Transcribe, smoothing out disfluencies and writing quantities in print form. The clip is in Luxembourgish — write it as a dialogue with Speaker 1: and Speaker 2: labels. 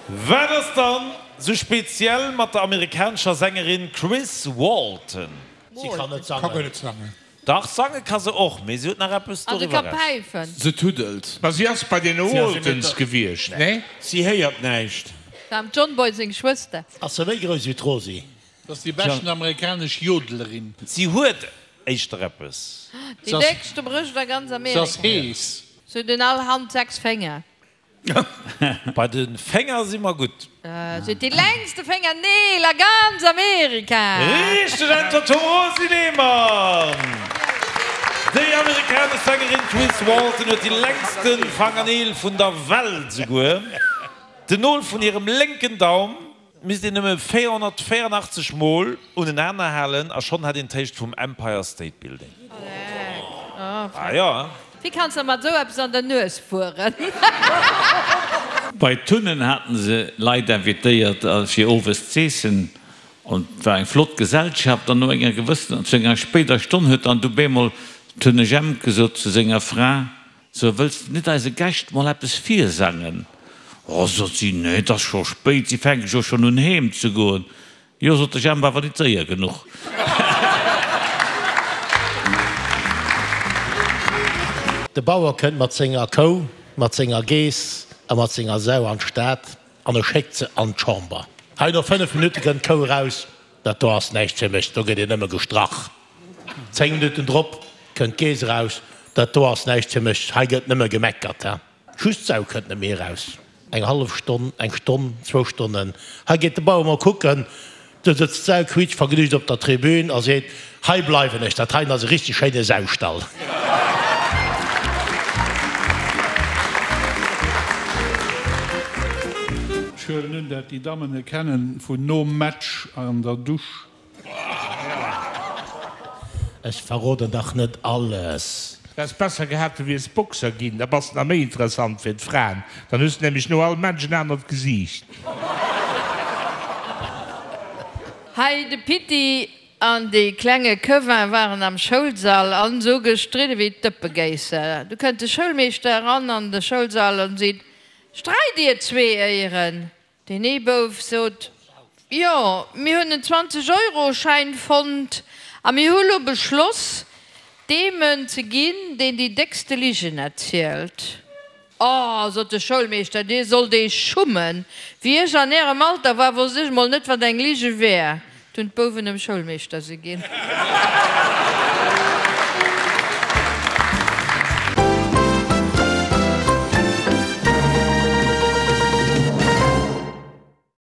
Speaker 1: Wat ass dann sou speziell mat der amerikanescher Sängerin Chris Walton?
Speaker 2: Si kann net sangen.
Speaker 1: Dach, sange ka se och, mee si huet nach eppes doriwwer
Speaker 3: eraus. Se tuddelt.
Speaker 4: Ma si ass bei den Waltons gewiescht, nee?
Speaker 5: Si héiert näischt.
Speaker 6: War dem John Boy seng Schwëster.
Speaker 2: Ass se méi grouss wéi d'Rosi?
Speaker 3: Et ass déi beschten amerikanesch Jodelerin.
Speaker 1: Si huet éischter eppes.
Speaker 6: Déi déckste Brëscht a ganz
Speaker 3: Amerika. Se ass hees.
Speaker 6: Se huet un all Hand 6 Fénger.
Speaker 1: Bei de Fénger si mer gutt.
Speaker 6: Se huet déi längste Féngerneel a ganz Amerika.
Speaker 1: Richteg Äntwert vum Rosi Lehmann! Déi amerikanesch Sängerin Chris Walton huet déi längste Fangerneel vun der Welt esouguer. Den Nol vun hirem lénken Daum Misst een nëmme 484 mol unenaner halen a schonn hätt een d'Héicht vum Empire State Building. Ah jo, hein?
Speaker 6: Wéi kanns de mat esou eppes an der Nues fueren?
Speaker 7: Bei Tunnen haten se Leit invitéiert fir owes z'eessen an et war eng flott Gesellschaft an no enger gewëssener, zu enger spéider Stonn huet dann du bemol Tunne Jemp gesot zu senger Fra, So, wëlls de net eise Gäscht mol eppes virsangen? Oh, sot si, nee, 't ass scho spéit, si fänke jo schonn un heem ze goen. Jo, sot de Jemp, awer nit séier genuch.
Speaker 2: De Bauer kënnt mat senger Kou, mat senger Geess a mat senger Sau an d'Stad an e schéckt se an d'Chamber. Hei no 5 Minutte kënnt d'Kou eraus, Dat do ass näischt fir mech, do gëtt een nëmme gestrach. 10 Minutten drop kënnt d'Geess eraus, Dat do ass näischt fir mech, hei gëtt nëmme gemeckert. Just d'Sau kënnt net méi eraus. Eng hallef Stonn, eng Stonn, zwou Stonnen, hei geet de Bauer mol kucken, do sëtzt d'Sau quiitschvergnügt op der Tribün a seet, Hei bleiwen ech, dat heien ass e richteg schéine Saustall.
Speaker 3: Ech huelen un dat déi Dammen e kennen vun nom Match an der Dusch.
Speaker 2: Ech verroden dach net alles.
Speaker 4: Häss besser gehat du wiers Boxer ginn, da bass de nach méi interessant fir d'Fraen, dann hues de nämlech no all Match en anert Gesiicht.
Speaker 6: Hei de Pitti an de klenge Kevin waren am Schoulsall an sou gestridde wéi d'Dëppegéisser. Du kënnt de Schoulmeeschter eran an de Schoulsall an seet, Streit dir zwee éieren? Deen ee Bouf sot, Jo, mir hunn en 20 Euro Schäin fonnt a mir hu lo beschloss, deem en ze ginn, deen déi déckste Ligen erzielt. Oh, sot de Schoulmeeschter, dir sollt eech schummen. Wéi ech an ärem Alter war, wosst ech mol net, wat eng Lige wär. D'hunn d'Bouwen dem Schoulmeeschter se ginn.